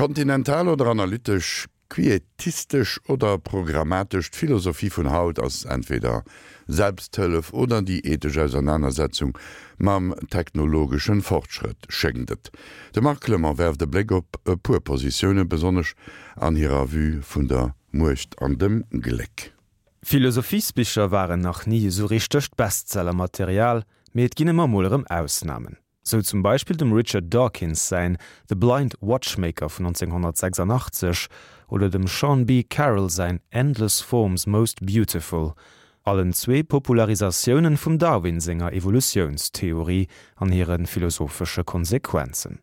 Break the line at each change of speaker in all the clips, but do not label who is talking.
Kontinental oder analytesch, quietistesch oder programmatesch, d'Philosophie vun haut ass entweder Selbsthëllef oder déi ethesch Ausernanersetzung mam technologeschen Fortschrëtt, schéngt et. De Marc Clement werft e Bléck op e puer Positiounen, besonnesch an hirer Vue vun der Muecht an dem Gléck.
Philosophiesbicher waren nach ni esou richtegt Bestsellermaterial, mee et ginn ëmmer mol erëm Ausnamen. Sou zum Beispill dem Richard Dawkins säin The Blind Watchmaker vun 1986 oder dem Sean B. Carroll säin Endless Forms Most Beautiful, allen zwee Popularisatiounen vum Darwin senger Evolutiounstheorie an hire philosophesche Konsequenzen.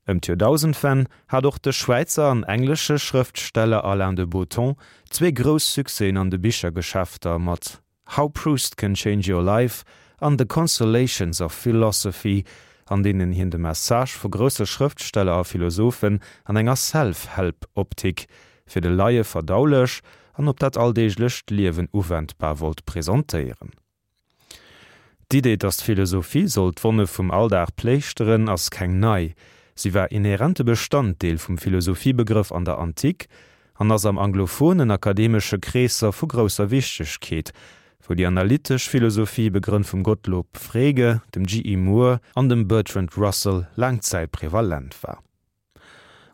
Ëm d'Joerdausendwenn hat och de Schwäizer an englesche Schrëftsteller Alain de Botton zwee grouss Succèsen an de Bichergeschäfter mat How Proust Can Change Your Life an The Consolations of Philosophy, an deenen hien de Message vu grousse Schrëftsteller a Philosophen an enger Self-Help-Optik, fir de Laie verdaulech an op dat alldeeglecht Liewen uwendbar wollt presentéieren. D'Idee, datt d'Philosophie soll d'Wonne vum Alldag pléischteren, ass keng nei. Si war inhärente Bestanddeel vum Philosophiebegrëff an der Antik an ass am anglophonen akademesche Kreesser vu grousser Wichtegkeet, wou déi analytesch Philosophie, begrënnt vum Gottlob Frege, dem GE. Moore an dem Bertrand Russell, laang Zäit prevalent war.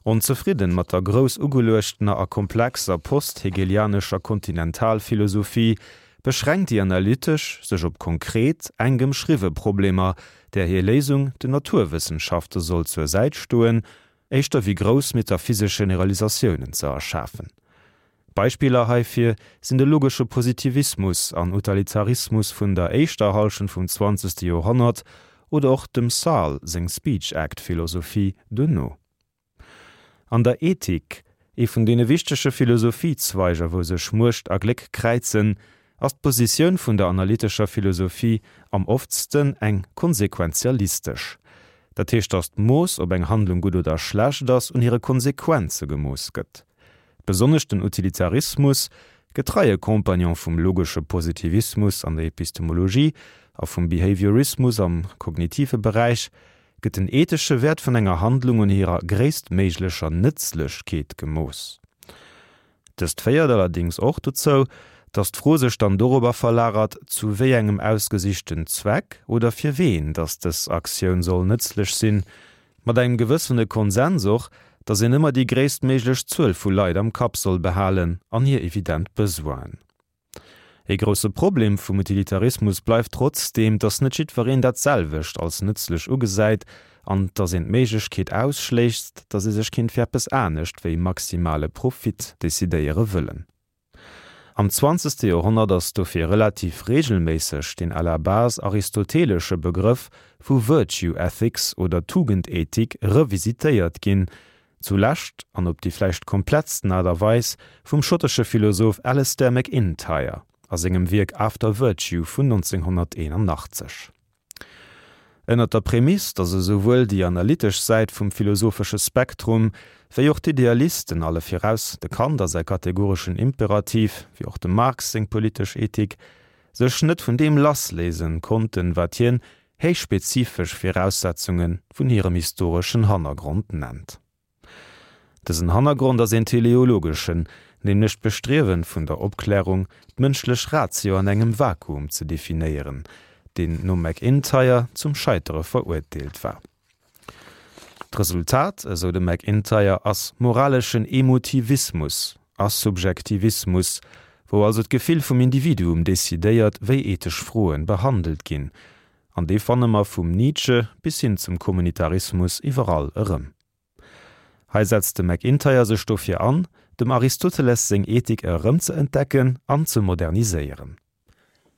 Onzefridden mat der grouss ugeluechtener a komplexer post-hegelianescher Kontinentalphilosophie, beschränkt déi analytesch sech op konkret, enk ëmschriwwe Problemer, där hir Léisung den Naturwëssenschafte soll zur Säit stoen, éischter wéi grouss metaphysesch Generalisatiounen ze erschafen. Beispiller heifir sinn de logesche Positivismus an Utalitarismus vun der éischter Hallschent vum zwanzegste Joerhonnert oder och dem Sarle seng Speech Act Philosophie duerno. An der Ethik, ee vun deene wichtege Philosophiezweiger wou sech Muecht a Gléck kräizen, ass d'Positioun vun der analytescher Philosophie am oftsten eng konsequenzialistesch. Dat heescht, datt d'Mooss, ob eng Handlung gutt oder schlecht ass, un hire Konsequenze gemooss gëtt. Besonnesch den Utilitarismus, getreie Compagnon vum logesche Positivismus an der Epistemologie a vum Behaviorismus am kognitive Beräich, gëtt den ethesche Wäert vun enger Handlung un hirer gréisstméiglecher Nëtzlechkeet gemooss. Dëst féiert allerdéngs och dozou, datt d'Fro sech dann dorobber verlagert, zu wéi engem ausgesichten Zweck oder fir ween datt dës Aktioun soll nëtzlech sinn, mat engem gewëssene Konsens och, datt een ëmmer déi gréisstméiglech Zuel vu Leit am Kapp soll behalen an hir evident Besoinen. Ee grousse Problem vum Utilitarismus bleift trotzdeem, datt net jiddwereen dat selwecht als nëtzlech ugesäit an datt een d'Méiglechkeet ausschléisst, datt ee sech kéint fir eppes anescht wéi maximale Profit decidéiere wëllen. Am zwanzegste Joerhonnert ass dofir relativ reegelméisseg den à la base aristotelesche Begrëff vu Virtue Ethics oder Tugendethik revisitéiert ginn, Zu Lescht, an op déi vläicht komplettsten Aart a Weis, vum schottesche Philosoph Alasdair MacIntyre a sengem Wierk After Virtue vun 1981. Ënnert der Prämiss, datt esouwuel déi analytesch Säit vum philosophesche Spektrum wéi och d'Idealisten, alle viraus de Kant a säi kategoreschen Imperativ, wéi och dem Marx seng politesch Ethik, sech net vun deem lassléisen konnten, wat hien héichspezifesch Viraussetzunge vun hirem historeschen Hannergrond nennt. Dësen Hannergrond ass een teleologeschen, nämlech d'Bestriewen vun der Opklärung, d'mënschlech Ratio an engem Vakuum ze definéieren, deen nom MacIntyre zum Scheitere verurteelt war. D'Resultat, esou de MacIntyre, ass moraleschen Emotivismus a Subjektivismus, wou also d'Gefill vum Individuum decidéiert, wéi ethesch Froen behandelt ginn. An dee fanne mer vum Nietzsche bis hin zum Kommunitarismus iwwerall erëm. Hei setzt de MacIntyre sech dofir an, dem Aristoteles seng Ethik erëmzeentdecken an ze moderniséieren.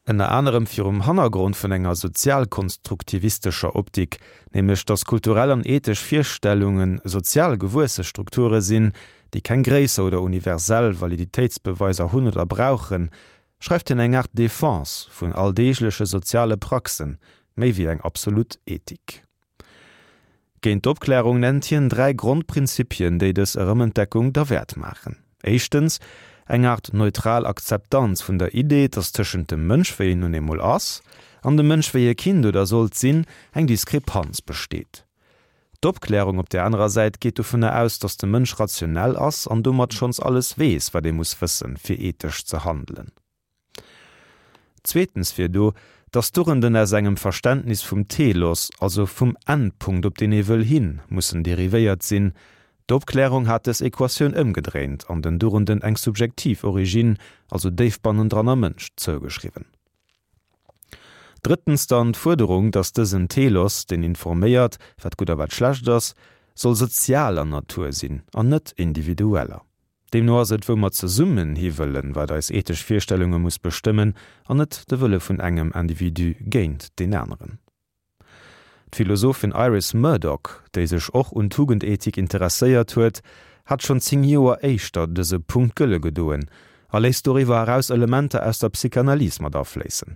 Ënner anerem virum Hannergrond vun enger sozialkonstruktivistescher Optik, nämlech datt kulturell an ethesch Virstellunge sozial gewuesse Strukture sinn, déi keng gréisser oder universell Validitéitsbeweiser hunn oder brauchen, schreift hien eng Aart Defense vun alldeegleche soziale Praxen, méi wéi eng absolut Ethik. Géint d'Opklärung nennt hien 3 Grondprinzipien, déi dës Erëmentdeckung derwäert maachen. Éischtens, eng Aart neutral Akzeptanz vun der Idee, datt tëschent dem Mënsch, wéi en nun eemol ass, an dem Mënsch, wéi e kinnt oder sollt sinn, eng Diskrepanz besteet. D'Opklärung op där anerer Säit geet dovunner aus, datt de Mënsch rationell ass an domat schonns alles weess, wat ee muss wëssen, fir ethesch ze handelen. Zweetens wier do, datt d'Dugenden aus engem Verständnis vum Telos, also vum Endpunkt, op deen ee wëll hin, mussen derivéiert sinn. D'Opklärung hat dës Equatioun ëmgedréint an den Dugenden eng subjektiv Origine, also déif bannendran am Mënsch, zougeschriwwen. Drëttens dann d'Fuerderung, datt dësen Telos, deen informéiert, wat gutt a wat schlecht ass, soll sozialer Natur sinn an net individueller. Deemno ass et, wou mer zesummen hi wëllen, wat eis ethesch Virstellunge muss bestëmmen, an net de Wëlle vun engem Individu géint deen aneren. D'Philosophin Iris Murdoch, déi sech och un Tugendethik interesséiert huet, hat schonn 10 Joer éischter dëse Punkt gëlle gedoen a léisst doriwwer eraus Elementer aus der Psychanalyse mat afléissen,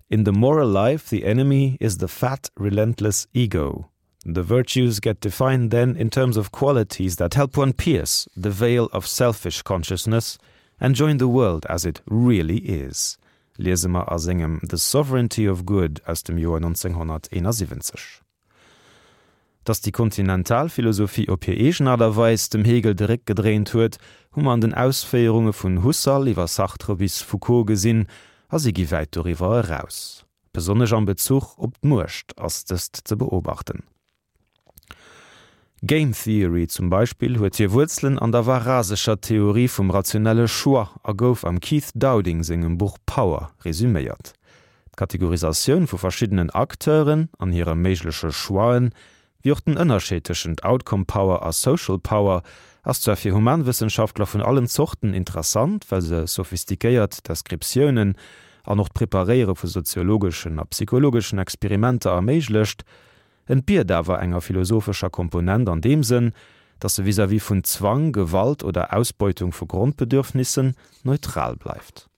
In the moral life the enemy is the fat, relentless ego. The virtues get defined then in terms of qualities that help one pierce the veil of selfish consciousness and join the world as it really is, liese mer a sengem The Sovereignty of Good aus dem Joer 1971. Datt déi kontinental Philosophie op hir eegen Aart a Weis dem Hegel de Réck gedréint huet, hu mer an den Ausféierunge vun Husserl iwwer Sartre bis Foucault gesinn, a si gi wäit doriwwer eraus. Besonnesch am Bezuch op d'Muecht ass dëst ze beobachten. Game Theory zum Beispill huet hir Wuerzelen an der varasescher Theorie vum rationelle Choix a gouf am Keith Dowding sengem Buch Power resüméiert. D'Kategorisatioun vu verschiddenen Acteuren an hire méigleche Choixen Wéi och den Ënnerscheed tëschent Outcome Power a Social Power ass zwar fir Humanwëssenschaftler vun allen Zorten interessant, well se sophistiquéiert Deskriptiounen an och d'Preparéiere vu soziologeschen a psychologeschen Experimenter erméiglecht, entbiert awer enger philosophescher Komponent an deem Sënn, datt se vis-à-vis vun Zwang, Gewalt oder Ausbeutung vu Grondbedürfnissen neutral bleift.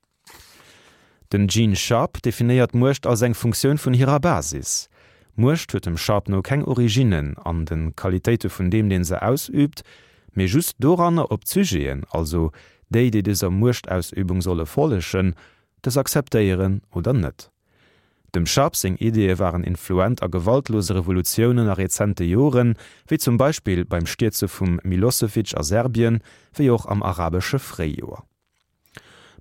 Den Gene Sharp definéiert Muecht als eng Funktioun vun hirer Basis. Muecht huet dem Sharp no keng Originnen an de Qualitéite vun deem, deen se ausüübt, mee just doranner, ob d'Sujeten, also déi, déi dëser Muechtausübung solle follegen, dës akzeptéieren oder net. Dem Sharp seng Ideeë waren influent a gewaltlose Revolutiounen a rezente Joren, wéi zum Beispill beim Stierze vum Milosevic a Serbien, wéi och am arabesche Fréijoer.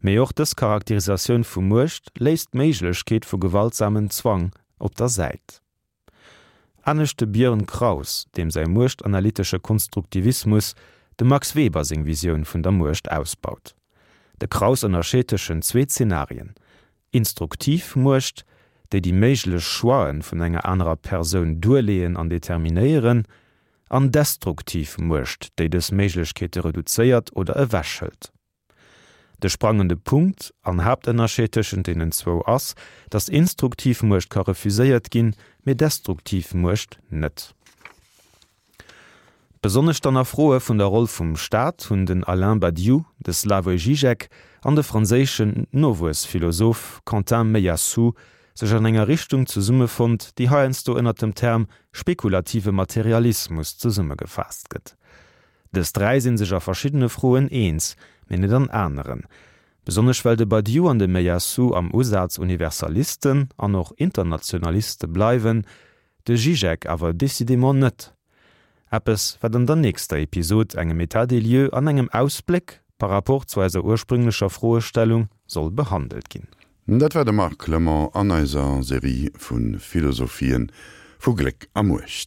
Mee och dës Charakterisatioun vu Muecht léisst d'Méiglechkeet vu gewaltsamen Zwang op der Säit. Anescht de Björn Kraus, deem säi muechtanalytesche Konstruktivismus dem Max Weber seng Visioun vun der Muecht ausbaut. De Kraus ënnerscheet tëschent zwee Zenarien, Instruktiv Muecht, déi déi méiglech Choixen vun enger anerer Persoun duerleeën an determinéieren, an destruktiv Muecht, déi dës Méiglechkeete reduzéiert oder ewechhëlt. De sprangende Punkt an Haaptënnerscheed tëschent deenen zwou ass, datt instruktiv Muecht ka refuséiert ginn, mee destruktiv Muecht net. Besonnesch dann a Froe vun der Roll vum Staat hunn den Alain Badiou, de Slavoj Žižek an de franséischen Nowuessphilosoph Quentin Meillassoux sech an enger Richtung zesummefonnt, déi heiansdo ënner dem Term spekulative Materialismus zesummegefaasst gëtt. Dës dräi sinn sech a verschiddene Froen eens, mee net an aneren. Besonnesch well de Badiou an de Meillassoux am Usaz Universalisten an och Internationaliste bleiwen, de Žižek awer décidément net. Eppes, wat an der nächster Episod, engem État des lieux an engem Ausbléck par rapport zu eiser ursprünglecher Froestellung, soll behandelt ginn.
Dat war de Marc Clement an eiser Serie vu Philosophien vu Gléck a Muecht.